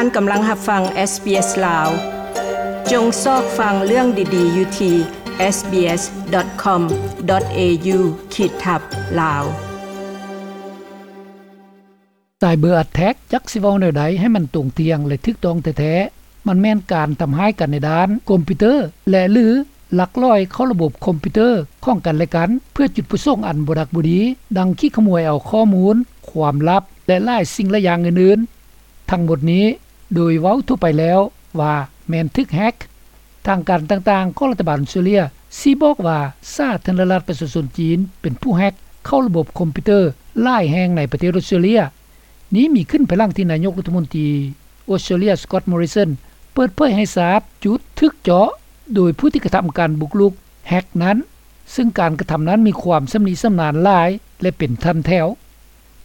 ທ່ານກຳລັງຮັບຟັງ SBS ລາວ. ຈົ່ງຊອກຟັງເລື່ອງດີໆຢູ່ທີ່ SBS.com.au ຂີດທັບ ລາວ. Cyber attack ຈັກຊິເວົ້າແນວໃດໃຫ້ມັນຕົງທ່ຽງ ແລະ ຖືກຕ້ອງແທ້ໆ, ມັນແມ່ນການທຳຮ້າຍກັນໃນດ້ານຄອມພິວເຕີ ແລະ ຫຼື ລັກລອຍເຂົ້າລະບົບຄອມພິວເຕີຂອງກັນແລະກັນ ເພື່ອຈຸດປະສົງອັນບໍ່ດັກບໍ່ດີ, ດັ່ງຂີ້ຂະໂມຍເອົາຂໍ້ມູນ, ຄວາມລັບ ແລະ ຫຼາຍສິ່ງຫຼາຍຢ່າງອື່ນໆ. ທັງໝົດນີ້ ໂດຍເວົ້າທົ່ວໄປແລ້ວວ່າແມ່ນຖືກແຮັກ. ທາງການຕ່າງໆຂອງລັດຖະບານອົດສະຕຣາເລຍຊີ້ບອກວ່າ ສາທາລະນະລັດປະຊາຊົນຈີນເປັນຜູ້ແຮັກເຂົ້າລະບົບຄອມພິວເຕີຫຼາຍແຫ່ງໃນປະເທດອົດສະຕຣາເລຍ. ນີ້ມີຂຶ້ນພາຍຫຼັງທີ່ນາຍົກລັດຖະມົນຕີອົດສະຕຣາເລຍ Scott Morrison ເປີດເຜີຍໃຫ້ຊາບຈຸດຖືກເຈາະໂດຍຜູ້ທີ່ກະທຳການບຸກລຸກແຮັກນັ້ນ, ເຊິ່ງການກະທຳນັ້ນມີຄວາມຊຳນິຊຳນານຫຼາຍ ແລະ ເປັນຖັນແຖວ.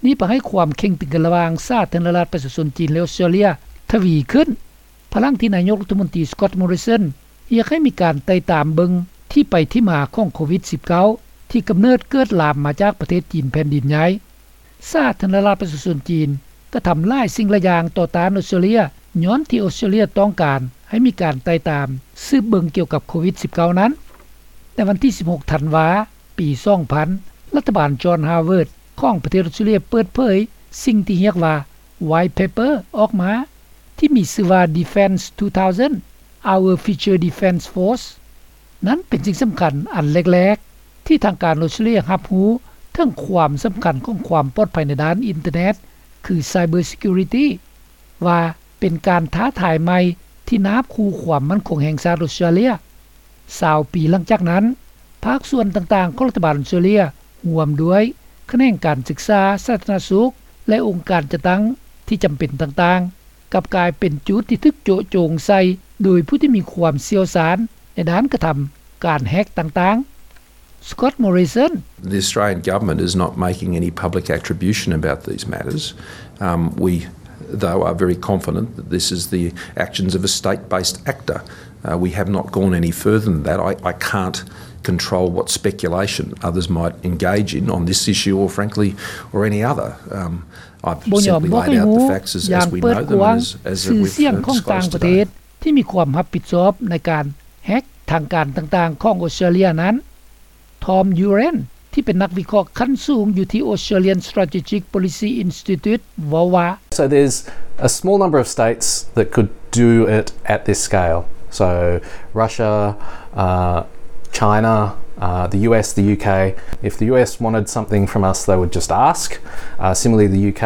ນີ້ປະໃຫ້ຄວາມເຄັ່ງຕຶງກັນລະຫວ່າງສາທາລະນະລັດປະຊາຊົນຈີນ ແລະ ອົດສະຕຣາເລຍທະວີຂຶ້ນ ພາຍຫຼັງທີ່ນາຍົກລັດຖະມົນຕີ Scott Morrison ຮຽກໃຫ້ມີການໄຕ່ຕາມເບິ່ງທີ່ໄປທີ່ມາຂອງໂຄວິດສິບເກົ້າ ທີ່ກຳເນີດເກີດລາມມາຈາກປະເທດຈີນແຜ່ນດິນໃຫຍ່. ສາທາລະນະລັດປະຊາຊົນຈີນກະທຳຫຼາຍສິ່ງຫຼາຍຢ່າງຕໍ່ຕ້ານອົດສະຕຣາເລຍ ຍ້ອນທີ່ອົດສະຕຣາເລຍຕ້ອງການໃຫ້ມີການໄຕ່ຕາມສືບເບິ່ງກ່ຽວກັບໂຄວິດສິບເກົ້ານັ້ນ. ໃນວັນທີສິບຫົກທັນວາ ປີສອງພັນ ລັດຖະບານ John Howard ຂອງປະເທດອົດສະຕຣາເລຍເປີດເຜີຍສິ່ງທີ່ຮຽກວ່າ White Paper ອອກມາ ທີ່ມີຊື່ວ່າ Defence two thousand: Our Future Defence Force. ນັ້ນເປັນສິ່ງສຳຄັນອັນແລກໆ ທີ່ທາງການອົດສະຕຣາເລຍຮັບຮູ້ເຖິງຄວາມສຳຄັນຂອງຄວາມປອດໄພໃນດ້ານອິນເຕີເນັດ ຄື Cyber Security ວ່າເປັນການທ້າທາຍໃໝ່ທີ່ນາບຂູ່ຄວາມໝັ້ນຄົງແຫ່ງຊາດອົດສະຕຣາເລຍ. ຊາວປີຫຼັງຈາກນັ້ນ, ພາກສ່ວນຕ່າງໆຂອງລັດຖະບານອົດສະຕຣາເລຍ ຮ່ວມດ້ວຍຂະແໜງການສຶກສາ, ສາທາລະນະສຸກ ແລະ ອົງການຈັດຕັ້ງທີ່ຈຳເປັນຕ່າງໆ ກັບກາຍເປັນຈຸດທີ່ຖືກໂຈະໂຈງໃສ່ໂດຍຜູ້ທີ່ມີຄວามຊ່ຽວຊານໃນດ້ານກະທຳການແຮັກຕ່າງໆ. Scott Morrison: The Australian government is not making any public attribution about these matters. Um, we, though, are very confident that this is the actions of a state-based actor. Uh, we have not gone any further than that. I, I can't control what speculation others might engage in on this issue or, frankly, or any other. Um, I've simply laid out the facts as, as we know them and as, as we've, uh, disclosed today. ທີ່ມີຄວາມຮັບຜິດຊອບໃນການແຮັກທາງການຕ່າງໆຂອງອົດສະຕຣາເລຍນັ້ນ. Tom Uren ທີ່ເປັນນັກວິເຄາະຂັ້ນສູງຢູ່ທີ່ Australian Strategic Policy Institute ເວົ້າວ່າ: So there's a small number of states that could do it at this scale. So Russia, uh, China, uh, the U S, the U K. If the U S wanted something from us, they would just ask. Uh, similarly, the U K.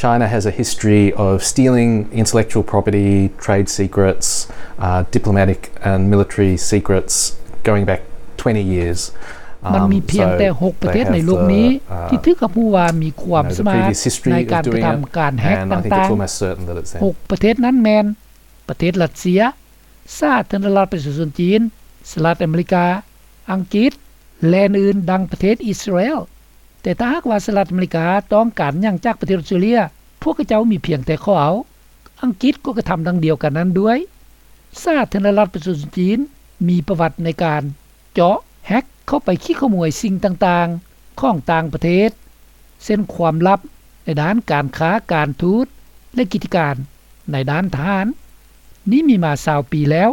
China has a history of stealing intellectual property, trade secrets, uh, diplomatic and military secrets going back twenty years. ມັນມີພຽງແຕ່ຫົກປະເທດໃນໂລກນີ້ທີ່ຖືກຮັບຮູ້ວ່າມີຄວາມສາມາດໃນການກະທຳການແຮັກຕ່າງໆ. ຫົກປະເທດນັ້ນແມ່ນ ປະເທດຣັດເຊຍ, ສາທາລະນະລັດປະຊາຊົນຈີນ, ສະຫະລັດອາເມລິກາ, ອັງກິດ ແລະ ອື່ນໆ ດັ່ງປະເທດອິດສະຣາແອລ. ແຕ່ຖ້າຫາກວ່າສະຫະລັດອາເມລິກາຕ້ອງການຫຍັງຈາກປະເທດອົດສະຕຣາເລຍ, ພວກເຂົາເຈົ້າມີພຽງແຕ່ຂໍເອົາ. ອັງກິດກໍກະທຳດັ່ງດຽວກັນນັ້ນດ້ວຍ. ສາທາລະນະລັດປະຊາຊົນຈີນມີປະຫວັດໃນການເຈາະ, ແຮັກເຂົ້າໄປຂີ້ຂະໂມຍສິ່ງຕ່າງໆຂອງຕ່າງປະເທດ, ເຊັ່ນ ຄວາມລັບໃນດ້ານການຄ້າ, ການທູດ ແລະ ກິດຈະການໃນດ້ານທະຫານ. ນີ້ມີມາຊາວປີແລ້ວ.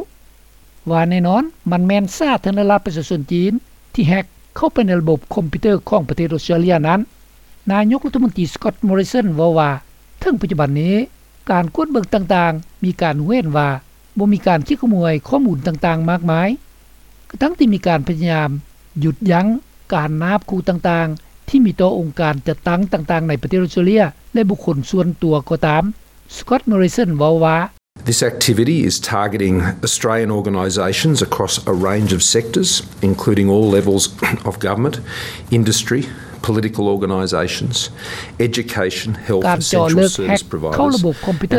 ວ່າແນ່ນອນ, ມັນແມ່ນສາທາລະນະລັດປະຊາຊົນຈີນທີ່ແຮັກເຂົ້າໄປໃນລະບົບຄອມພິວເຕີຂອງປະເທດອົດສະຕຣາເລຍນັ້ນ. ນາຍົກລັດຖະມົນຕີ Scott Morrison ເວົ້າວ່າ ເຖິງປັດຈຸບັນນີ້, ການກວດເບິ່ງຕ່າງໆ ມີການຮູ້ເຫັນວ່າບໍ່ມີການຂີ້ຂະໂມຍຂໍ້ມູນຕ່າງໆມາກມາຍ, ກະທັ່ງທີ່ມີການພະຍາຍາມຢຸດຢັ້ງການນາບຂູ່ຕ່າງໆທີ່ມີຕໍ່ອົງການຈັດຕັ້ງຕ່າງໆໃນປະເທດອົດສະຕຣາເລຍ ແລະ ບຸກຄົນສ່ວນຕົວກໍຕາມ. Scott Morrison ເວົ້າວ່າ: This activity is targeting Australian organisations across a range of sectors, including all levels of government, industry, political organisations, education, health, essential service providers and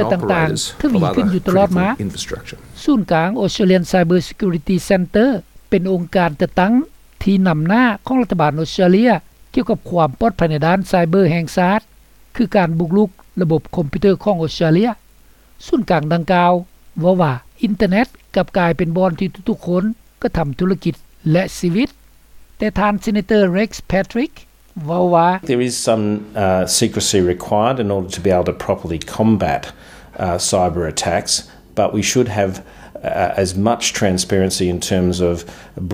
operators of other critical infrastructure. ສູນກາງ Australian Cyber Security Centre ເປັນອົງການຈັດຕັ້ງທີ່ນຳໜ້າຂອງລັດຖະບານອົດສະຕຣາເລຍ ກ່ຽວກັບຄວາມປອດໄພໃນດ້ານໄຊເບີແຫ່ງຊາດ, ຄືການບຸກລຸກລະບົບຄອມພິວເຕີຂອງອົດສະຕຣາເລຍ. ສູນກາງດັ່ງກ່າວເວົ້າວ່າ ອິນເຕີເນັດກັບກາຍເປັນບ່ອນທີ່ທຸກໆຄົນກະທຳທຸລະກິດ ແລະ ຊີວິດ. ແຕ່ທ່ານ Senator Rex Patrick ເວົ້າວ່າ: There is some, uh, secrecy required in order to be able to properly combat uh, cyber attacks, but we should have uh, as much transparency in terms of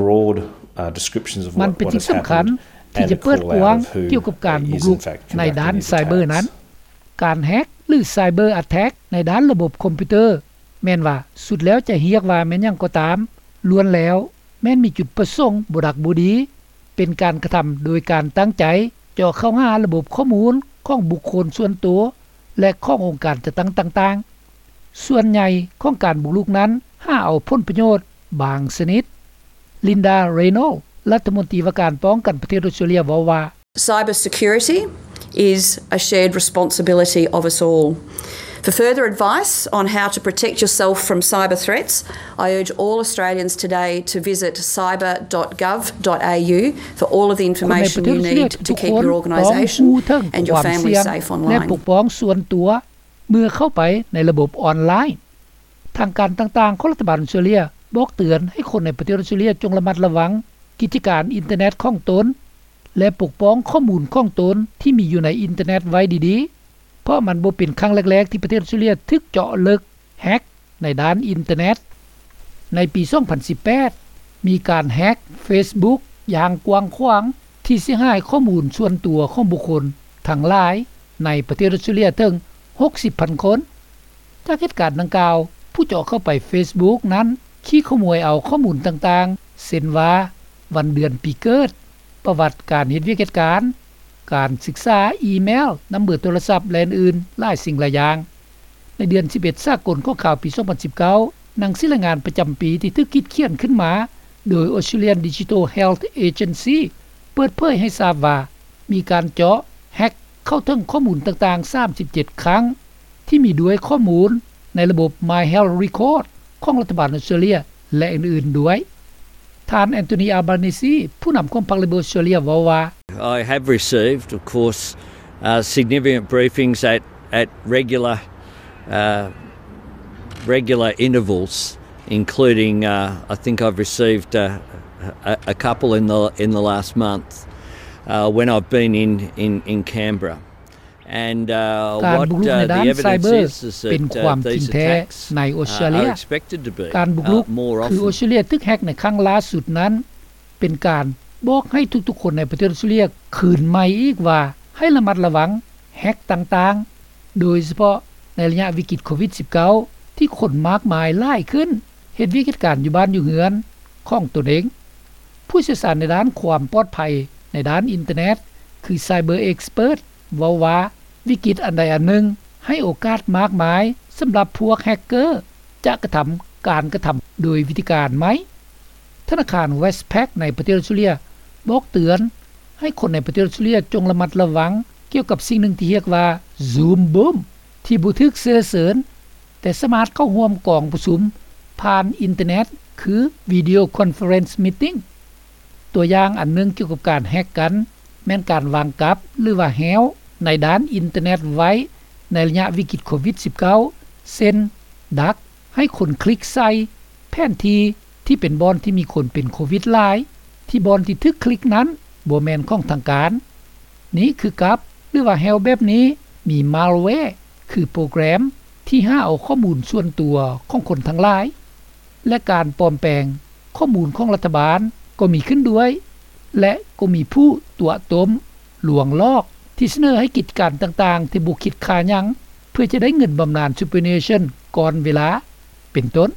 broad uh, descriptions of what, what has happened and a call out of who is in fact conducting these attacks. ມັນເປັນສິ່ງສຳຄັນທີ່ຈະເປີດກວ້າງກ່ຽວກັບການບຸກລຸກໃນດ້ານໄຊເບີນັ້ນ. ການແຮັກ ຫຼື cyber attack ໃນດ້ານລະບົບຄອມພິວເຕີ ແມ່ນວ່າສຸດແລ້ວຈະຮຽກວ່າແມ່ນຫຍັງກໍຕາມ, ລ້ວນແລ້ວແມ່ນມີຈຸດປະສົງບໍ່ດັກບໍ່ດີ, ເປັນການກະທຳໂດຍການຕັ້ງໃຈ ເຈາະເຂົ້າຫາລະບົບຂໍ້ມູນຂອງບຸກຄົນສ່ວນໂຕ ແລະ ຂອງອົງການຈັດຕັ້ງຕ່າງໆ. ສ່ວນໃຫຍ່ຂອງການບຸກລຸກນັ້ນ ຫາເອົາຜົນປະໂຫຍດບາງຊະນິດ. ລິນດາ ເຣໂນ ລັດຖະມົນຕີວ່າການປ້ອງກັນປະເທດອົດສະຕຣາເລຍ ເວົ້າວ່າ Cyber security is a shared responsibility of us all. For further advice on how to protect yourself from cyber threats, I urge all Australians today to visit cyber dot gov dot a u for all of the information you need to keep your organisation and your family safe online. ແລະ ປົກປ້ອງສ່ວນຕົວເມື່ອເຂົ້າໄປໃນລະບົບອອນລາຍ. ທາງການຕ່າງໆຂອງລັດຖະບານອົດສະຕຣາເລຍບອກເຕືອນໃຫ້ຄົນໃນປະເທດອົດສະຕຣາເລຍຈົ່ງລະມັດລະວັງກິດຈະການອິນເຕີເນັດຂອງຕົນ ແລະ ປົກປ້ອງຂໍ້ມູນຂອງຕົນທີ່ມີຢູ່ໃນອິນເຕີເນັດໄວ້ດີໆ, ເພາະມັນບໍ່ເປັນຄັ້ງແລກໆທີ່ປະເທດອົດສະຕຣາເລຍຖືກເຈາະເລິກ ແຮັກ ໃນດ້ານອິນເຕີເນັດ. ໃນປີສອງພັນສິບແປດ ມີການແຮັກເຟສບຸກຢ່າງກວ້າງຂວາງ ທີ່ເສຍຫາຍຂໍ້ມູນສ່ວນຕົວຂອງບຸກຄົນທັງຫຼາຍໃນປະເທດອົດສະຕຣາເລຍເຖິງຫົກສິບພັນຄົນ. ຈາກເຫດການດັ່ງກ່າວ, ຜູ້ເຈາະເຂົ້າໄປເຟສບຸກນັ້ນ ຂີ້ຂະໂມຍເອົາຂໍ້ມູນຕ່າງໆ ເຊັ່ນວ່າ ວັນເດືອນປີເກີດ, ປະຫວັດການເຮັດວຽກເຮັດການ, ການສຶກສາ, ອີເມວ, ນຳເບີໂທລະສັບ ແລະ ອື່ນໆຫຼາຍສິ່ງຫຼາຍຢ່າງ. ໃນເດືອນສິບເອັດສາກົນຂອງຂ່າວປີສອງພັນສິບເກົ້າ, ໜັງສືລາຍງານປະຈຳປີທີ່ຖືກຄິດຂຽນຂຶ້ນມາໂດຍ Australian Digital Health Agency ເປີດເຜີຍໃຫ້ຊາບວ່າ ມີການເຈາະ ແຮັກ ເຂົ້າເຖິງຂໍ້ມູນຕ່າງໆສາມສິບເຈັດຄັ້ງ ທີ່ມີດ້ວຍຂໍ້ມູນໃນລະບົບ My Health Record ຂອງລັດຖະບານອົດສະຕຣາເລຍ ແລະ ອື່ນໆດ້ວຍ. ທ່ານ Anthony Albanese ຜູ້ນຳຂອງພັກ Labor ອົດສະຕຣາເລຍ ເວົ້າວ່າ I have received, of course, uh, significant briefings at, at regular, uh, regular intervals, including, uh, I think I've received, uh, a, a couple in the, in the last month, uh, when I've been in, in, in Canberra. ການບຸກລຸກໃນດ້ານໄຊເບີເປັນຄວາມຈິງແທ້ໃນອົດສະຕຣາເລຍ. ການບຸກລຸກຄືອົດສະຕຣາເລຍຖືກແຮັກໃນຄັ້ງລ່າສຸດນັ້ນ ເປັນການບອກໃຫ້ທຸກໆຄົນໃນປະເທດອົດສະຕຣາເລຍຄືນໃໝ່ອີກວ່າ ໃຫ້ລະມັດລະວັງແຮັກຕ່າງໆ, ໂດຍສະເພາະໃນໄລຍະວິກິດໂຄວິດສິບເກົ້າ ທີ່ຄົນມາກມາຍຫຼາຍຂຶ້ນ ເຮັດວຽກເຮັດການຢູ່ບ້ານຢູ່ເຮືອນຂອງຕົນເອງ. ຜູ້ຊ່ຽວຊານໃນດ້ານຄວາມປອດໄພໃນດ້ານອິນເຕີເນັດ ຄື Cyber Expert ເວົ້າວ່າ ວິກິດອັນໃດອັນໜຶ່ງໃຫ້ໂອກາດມາກມາຍສຳລັບພວກແຮັກເກີຈະກະທຳການກະທຳໂດຍວິທີການໃໝ່. ທະນາຄານ Westpac ໃນປະເທດອົດສະຕຣາເລຍບອກເຕືອນໃຫ້ຄົນໃນປະເທດອົດສະຕຣາເລຍຈົ່ງລະມັດລະວັງກ່ຽວກັບສິ່ງໜຶ່ງທີ່ຮຽກວ່າ Zoom Boom ທີ່ບໍ່ຖືກເຊື້ອເຊີນ ແຕ່ສາມາດເຂົ້າຮ່ວມກອງປະຊຸມຜ່ານອິນເຕີເນັດ ຄື Video Conference Meeting. ຕົວຢ່າງອັນໜຶ່ງກ່ຽວກັບການແຮັກກັນ ແມ່ນການວາງກັບ ຫຼືວ່າແຮ້ວໃນດ້ານອິນເຕີເນັດໄວ້ໃນໄລຍະວິກິດໂຄວິດສິບເກົ້າ ເຊັ່ນ ດັກໃຫ້ຄົນຄລິກໃສ່ແຜນທີ່ທີ່ເປັນບ່ອນທີ່ມີຄົນເປັນໂຄວິດຫຼາຍ ທີ່ບ່ອນທີ່ຖືກຄລິກນັ້ນບໍ່ແມ່ນຂອງທາງການ. ນີ້ຄືກັບ ຫຼືວ່າແຮ້ວແບບນີ້ມີ malware ຄືໂປຣແກຣມທີ່ຫາເອົາຂໍ້ມູນສ່ວນຕົວຂອງຄົນທັງຫຼາຍ ແລະ ການປອມແປງຂໍ້ມູນຂອງລັດຖະບານກໍມີຂຶ້ນດ້ວຍ ແລະ ກໍມີຜູ້ຕົວະຕົ້ມ ລວງຫຼອກ ທີ່ສະເໜີໃຫ້ກິດການຕ່າງໆທີ່ບໍ່ຄິດຄ່າຫຍັງ ເພື່ອຈະໄດ້ເງິນບຳນານ Superannuation ກ່ອນເວລາ ເປັນຕົ້ນ.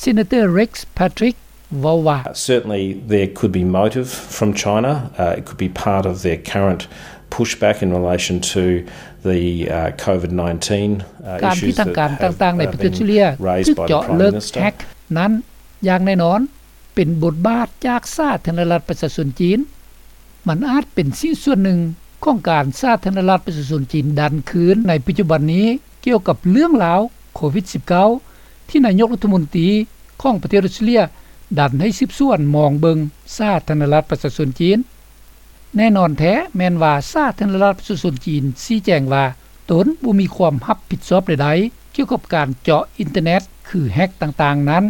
Senator Rex Patrick ເວົ້າວ່າ Certainly there could be motive from China. Uh, it could be part of their current pushback in relation to the uh, COVID nineteen uh, ການທີ່ທາງການຕ່າງໆໃນປະເທດຊີເລຍຖືກເຈາະເລິກແຮັກນັ້ນ ຢ່າງແນ່ນອນ ເປັນບົດບາດຈາກສາທາລະນະລັດປະຊາຊົນຈີນ. ມັນອາດເປັນສິ່ງສ່ວນໜຶ່ງຂອງການສາທາລະນະລັດປະຊາຊົນຈີນດັນຄືນໃນປັດຈຸບັນນີ້ ກ່ຽວກັບເລື່ອງລາວໂຄວິດສິບເກົ້າ ທີ່ນາຍົກລັດຖະມົນຕີຂອງປະເທດອົດສະຕຣາເລຍດັນໃຫ້ສືບສວນມອງເບິ່ງສາທາລະນະລັດປະຊາຊົນຈີນ. ແນ່ນອນແທ້ແມ່ນວ່າສາທາລະນະລັດປະຊາຊົນຈີນຊີ້ແຈງວ່າ ຕົນບໍ່ມີຄວາມຮັບຜິດຊອບໃດໆກ່ຽວກັບການເຈາະອິນເຕີເນັດ ຄືແຮັກຕ່າງໆນັ້ນ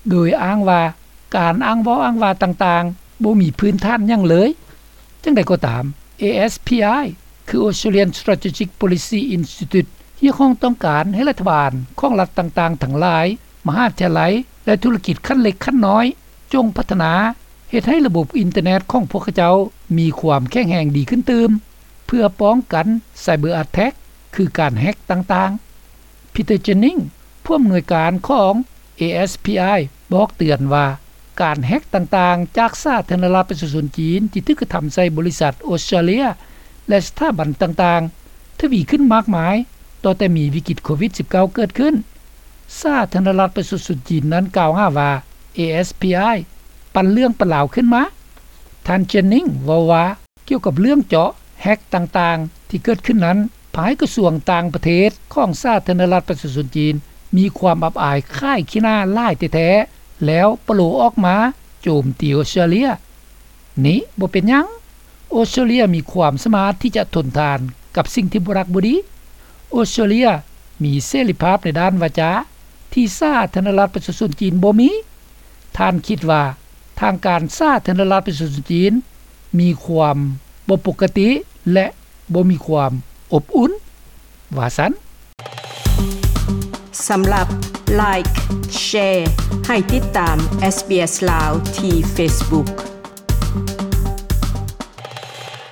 ໂດຍອ້າງວ່າ ການອ້າງເວົ້າອ້າງວ່າຕ່າງໆ ບໍ່ມີພື້ນຖານຫຍັງເລີຍ. ຈັ່ງໃດກໍຕາມ ASPI ຄື Australian Strategic Policy Institute ຮຽກຮ້ອງຕ້ອງການໃຫ້ລັດຖະບານຂອງລັດຕ່າງໆທັງຫຼາຍ, ມະຫາວິທະຍາໄລ ແລະ ທຸລະກິດຂັ້ນເລັກຂັ້ນນ້ອຍ ຈົ່ງພັດທະນາເຮັດໃຫ້ລະບົບອິນເຕີເນັດຂອງພວກເຂົາເຈົ້າມີຄວາມແຂງແຮງດີຂຶ້ນຕື່ມ ເພື່ອປ້ອງກັນ cyber attack ຄືການແຮັກຕ່າງໆ. ພີເຕີ ເຈນນິງ ຜູ້ອຳນວຍການຂອງ ASPI ບອກເຕືອນວ່າ ການແຮັກຕ່າງໆຈາກສາທາລະນະລັດປະຊາຊົນຈີນທີ່ຖືກກະທຳໃສ່ບໍລິສັດອອສເຕຣເລັຍ ແລະ ສະຖາບັນຕ່າງໆ ທະວີຂຶ້ນມາກມາຍ ຕໍ່ແຕ່ມີວິກິດໂຄວິດ-19 ເກີດຂຶ້ນ. ສາທາລະນະລັດປະຊາຊົນຈີນນັ້ນກ່າວຫາວ່າ ASPI ປັ່ນເລື່ອງປັນລາວຂຶ້ນມາ. ທ່ານ ເຈນນິງ ເວົ້າວ່າ ກ່ຽວກັບເລື່ອງເຈາະແຮັກຕ່າງໆທີ່ເກີດຂຶ້ນນັ້ນ ພາຍກະຊວງຕ່າງປະເທດຂອງສາທາລະນະລັດປະຊາຊົນຈີນ ມີຄວາມອັບອາຍຂາຍຂີ້ໜ້າຫຼາຍແທ້ໆ ແລ້ວປະໂລອອກມາໂຈມຕີອອສເຕຣເລັຍ. ນີ້ບໍ່ເປັນຫຍັງ. ອອສເຕຣເລັຍມີຄວາມສາມາດທີ່ຈະທົນທານກັບສິ່ງທີ່ບໍ່ຮັກບໍ່ດີ. ອອສເຕຣເລັຍມີເສລີພາບໃນດ້ານວາຈາທີ່ສາທາລະນະລັດປະຊາຊົນຈີນບໍ່ມີ. ທ່ານຄິດວ່າທາງການສາທາລະນະລັດປະຊາຊົນຈີນມີຄວາມບໍ່ປົກກະຕິ ແລະ ບໍ່ມີຄວາມອົບອຸ່ນ ວ່າຊັ້ນ. ສຳລັບ Like Share ໃຫ້ຕິດຕາມ SBS ລາວ ທີ່ Facebook.